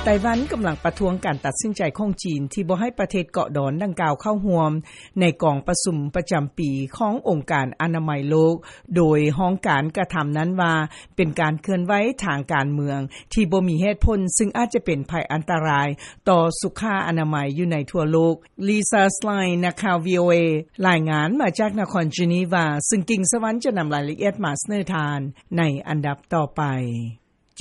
ໄຕ້ຫວັນກຳລັງປະທ້ວງການຕັດສິນໃຈຂອງຈີນ ທີ່ບໍ່ໃຫ້ປະເທດເກາະດອນດັ່ງກ່າວເຂົ້າຮ່ວມໃນກອງປະຊຸມປະຈຳປີຂອງອົງການອະນາໄມໂລກ, ໂດຍຫ້ອງການກະທຳນັ້ນວ່າ ເປັນການເຄື່ອນໄຫວທາງການເມືອງທີ່ບໍ່ມີເຫດຜົນ, ຊຶ່ງອາດຈະເປັນໄພອັນຕະລາຍຕໍ່ສຸຂາອະນາໄມຢູ່ໃນທົ່ວໂລກ. Lisa Schlein ນັກຂ່າວ VOA ລາຍງານມາຈາກນະຄອນເຈນີວາ, ຊຶ່ງກິ່ງສະຫວັນຈະນຳລາຍລະອຽດມາສະເໜີທ່ານໃນອັນດັບຕໍ່ໄປ.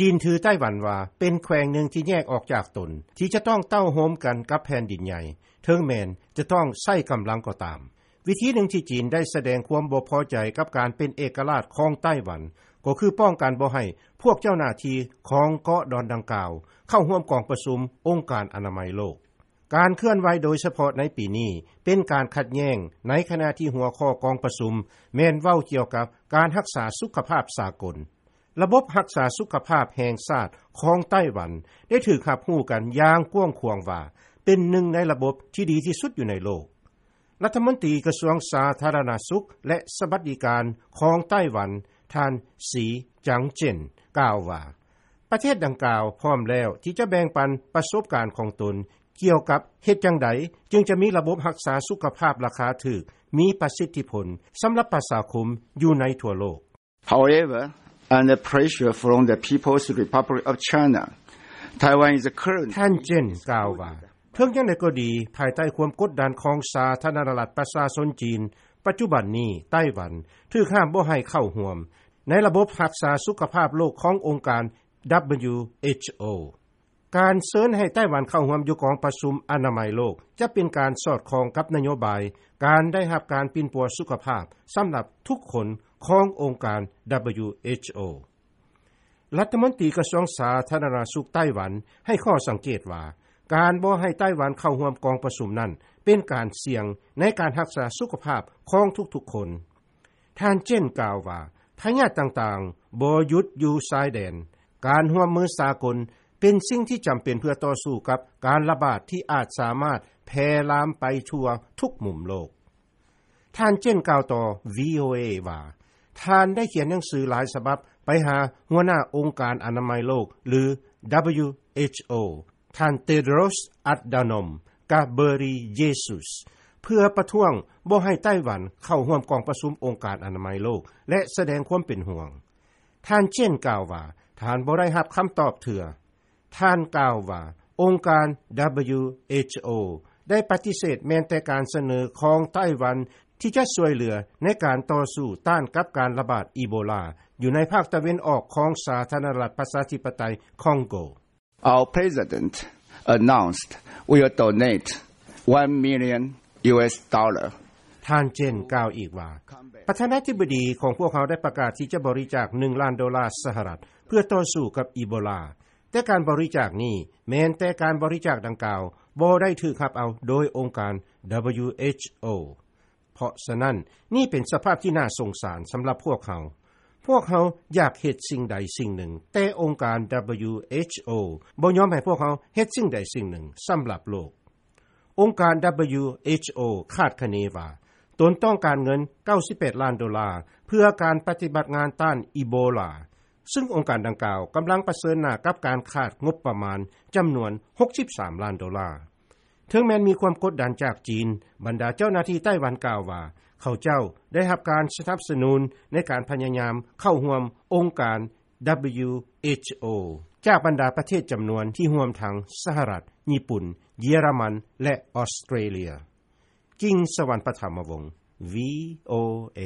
ຈີນຖືໄຕ້ຫວັນວ່າເປັນແຂວງໜຶ່ງທີ່ແຍກອອກຈາກຕົນ, ທີ່ຈະຕ້ອງເຕົ້າໂຮມກັນກັບແຜ່ນດິນໃຫຍ່, ເຖິງແມ່ນຈະຕ້ອງໃຊ້ກຳລັງກໍຕາມ. ວິທີໜຶ່ງທີ່ຈີນໄດ້ສະແດງຄວາມບໍ່ພໍໃຈກັບການເປັນເອກະລາດຂອງໄຕ້ຫວັນ ກໍຄືປ້ອງກັນບໍ່ໃຫ້ພວກເຈົ້າໜ້າທີ່ຂອງເກາະດອນດັ່ງກ່າວເຂົ້າຮ່ວມກອງປະຊຸມອົງການອະນາໄມໂລກ. ການເຄື່ອນໄຫວໂດຍສະເພາະໃນປີນີ້ ເປັນການຂັດແຍ້ງ ໃນຂະນະທີ່ຫົວຂໍ້ກອງປະຊຸມແມ່ນເວົ້າກ່ຽວກັບການຮັກສາສຸຂະພາບສາກົນ. ລະບົບຮັກສາສຸຂະພາບແຫ່ງຊາດຂອງໄຕ້ຫວັນ ໄດ້ຖືກຮັບຮູ້ກັນຢ່າງກວ້າງຂວາງວ່າ ເປັນໜຶ່ງໃນລະບົບທີ່ດີທີ່ສຸດຢູ່ໃນໂລກ. ລັດຖະມົນຕີກະຊວງສາທາລະນະສຸກ ແລະ ສະຫວັດດີການຂອງໄຕ້ຫວັນ ທ່ານ ສີ ຈາງເຈັນ ກ່າວວ່າ ປະເທດດັ່ງກ່າວພ້ອມແລ້ວທີ່ຈະແບ່ງປັນປະສົບການຂອງຕົນ ກ່ຽວກັບເຮັດຈັ່ງໃດຈຶ່ງຈະມີລະບົບຮັກສາສຸຂະພາບລາຄາຖືກ ມີປະສິດທິຜົນສຳລັບປະຊາຄົມຢູ່ໃນທົ່ວໂລກ. However, under pressure from the People's Republic of China, Taiwan is currently ທ່ານເຈັນ ກ່າວວ່າ ເຖິງຢ່າງໃດກໍດີ, ພາຍໃຕ້ຄວາມກົດດັນຂອງສາທາລະນະລັດປະຊາຊົນຈີນ, ປັດຈຸບັນນີ້ໄຕ້ຫວັນຖືກຫ້າມບໍ່ໃຫ້ເຂົ້າຮ່ວມໃນລະບົບຮັກສາສຸຂະພາບໂລກຂອງອົງການ WHO. ການເຊີນໃຫ້ໄຕ້ຫວັນເຂົ້າຮ່ວມຢູ່ກອງປະຊຸມອະນາໄມໂລກ ຈະເປັນການສອດຄ່ອງກັບນະໂຍບາຍການໄດ້ຮັບການປິ່ນປົວສຸຂະພາບສຳລັບທຸກຄົນຂອງອົງການ WHO. ລັດຖະມົນຕີກະຊວງສາທາລະນະສຸກໄຕ້ຫວັນໃຫ້ຂໍ້ສັງເກດວ່າ ການບໍ່ໃຫ້ໄຕ້ຫວັນເຂົ້າຮ່ວມກອງປະຊຸມນັ້ນ ເປັນການສ່ຽງໃນການຮັກສາສຸຂະພາບຂອງທຸກໆຄົນ. ທ່ານເຈັນ ກ່າວວ່າ ພະຍາດຕ່າງໆບໍ່ຢຸດຢູ່ຊາຍແດນ. ການຮ່ວມມືສາກົນເປັນສິ່ງທີ່ຈຳເປັນເພື່ອຕໍ່ສູ້ກັບການລະບາດທີ່ອາດສາມາດແຜ່ລາມໄປທົ່ວທຸກມຸມໂລກ. ທ່ານເຈັນ ກ່າວຕໍ່ VOA ວ່າ ທ່ານໄດ້ຂຽນໜັງສືຫຼາຍສະບັບໄປຫາຫົວໜ້າອົງການອະນາໄມໂລກ ຫຼື WHO ທ່ານ Tedros Adhanom Ghebreyesus ເພື່ອປະທ້ວງບໍ່ໃຫ້ໄຕ້ຫວັນເຂົ້າຮ່ວມກອງປະຊຸມອົງການອະນາໄມໂລກ ແລະ ສະແດງຄວາມເປັນຫ່ວງ. ທ່ານເຈັນ ກ່າວວ່າ ທ່ານບໍ່ໄດ້ຮັບຄຳຕອບເທື່ອ. ທ່ານກ່າວວ່າ ອົງການ WHO ໄດ້ປະຕິເສດແມ່ນແຕ່ການສະເໜີຂອງໄຕ້ຫວັນທີ່ຈະຊ່ວຍເຫຼືອໃນການຕໍ່ສູ້ຕ້ານກັບການລະບາດອີໂບລາ ຢູ່ໃນພາກຕາເວັນອອກຂອງສາທາລະນະລັດປະຊາທິປະໄຕຄອງໂກ. Our president announced we will donate one million US dollar. ທ່ານເຈັນ ກ່າວອີກວ່າ ປະທານາທິບໍດີຂອງພວກເຮົາໄດ້ປະກາດທີ່ຈະບໍລິຈາກໜຶ່ງລ້ານໂດລາສະຫະລັດ ເພື່ອຕໍ່ສູ້ກັບອີໂບລາ, ແຕ່ການບໍລິຈາກນີ້ແມ່ນແຕ່ການບໍລິຈາກດັ່ງກ່າວບໍ່ໄດ້ຖືກຮັບເອົາໂດຍອົງການ WHO. ເພາະສະນັ້ນ, ນີ້ເປັນສະພາບທີ່ໜ້າສົງສານສຳລັບພວກເຮົາ. ພວກເຮົາຢາກເຮັດສິ່ງໃດສິ່ງໜຶ່ງ, ແຕ່ອົງການ WHO ບໍ່ຍອມໃຫ້ພວກເຮົາເຮັດສິ່ງໃດສິ່ງໜຶ່ງສຳລັບໂລກ. ອົງການ WHO ຄາດຄະເນວ່າ ຕົນຕ້ອງການເງິນເກົ້າສິບແປດລ້ານໂດລາ ເພື່ອການປະຕິບັດງານຕ້ານອີໂບລາ, ຊຶ່ງອົງການດັ່ງກ່າວກຳລັງປະເຊີນໜ້າກັບການຂາດງົບປະມານຈຳນວນຫົກສິບສາມລ້ານໂດລາ. ເຖິງແມ່ນມີຄວາມກົດດັນຈາກຈີນ, ບັນດາເຈົ້າໜ້າທີ່ໄຕ້ຫວັນກ່າວວ່າ ເຂົາເຈົ້າໄດ້ຮັບການສະໜັບສະໜູນໃນການພະຍາຍາມເຂົ້າຮ່ວມອົງການ WHO ຈາກບັນດາປະເທດຈຳນວນທີ່ຮ່ວມທັງສະຫະລັດ, ຍີ່ປຸ່ນ, ເຢຍລະມັນ ແລະ ອອສເຕຣເລຍ. ກິ່ງສະຫວັນ ປະຖະມະວົງ VOA.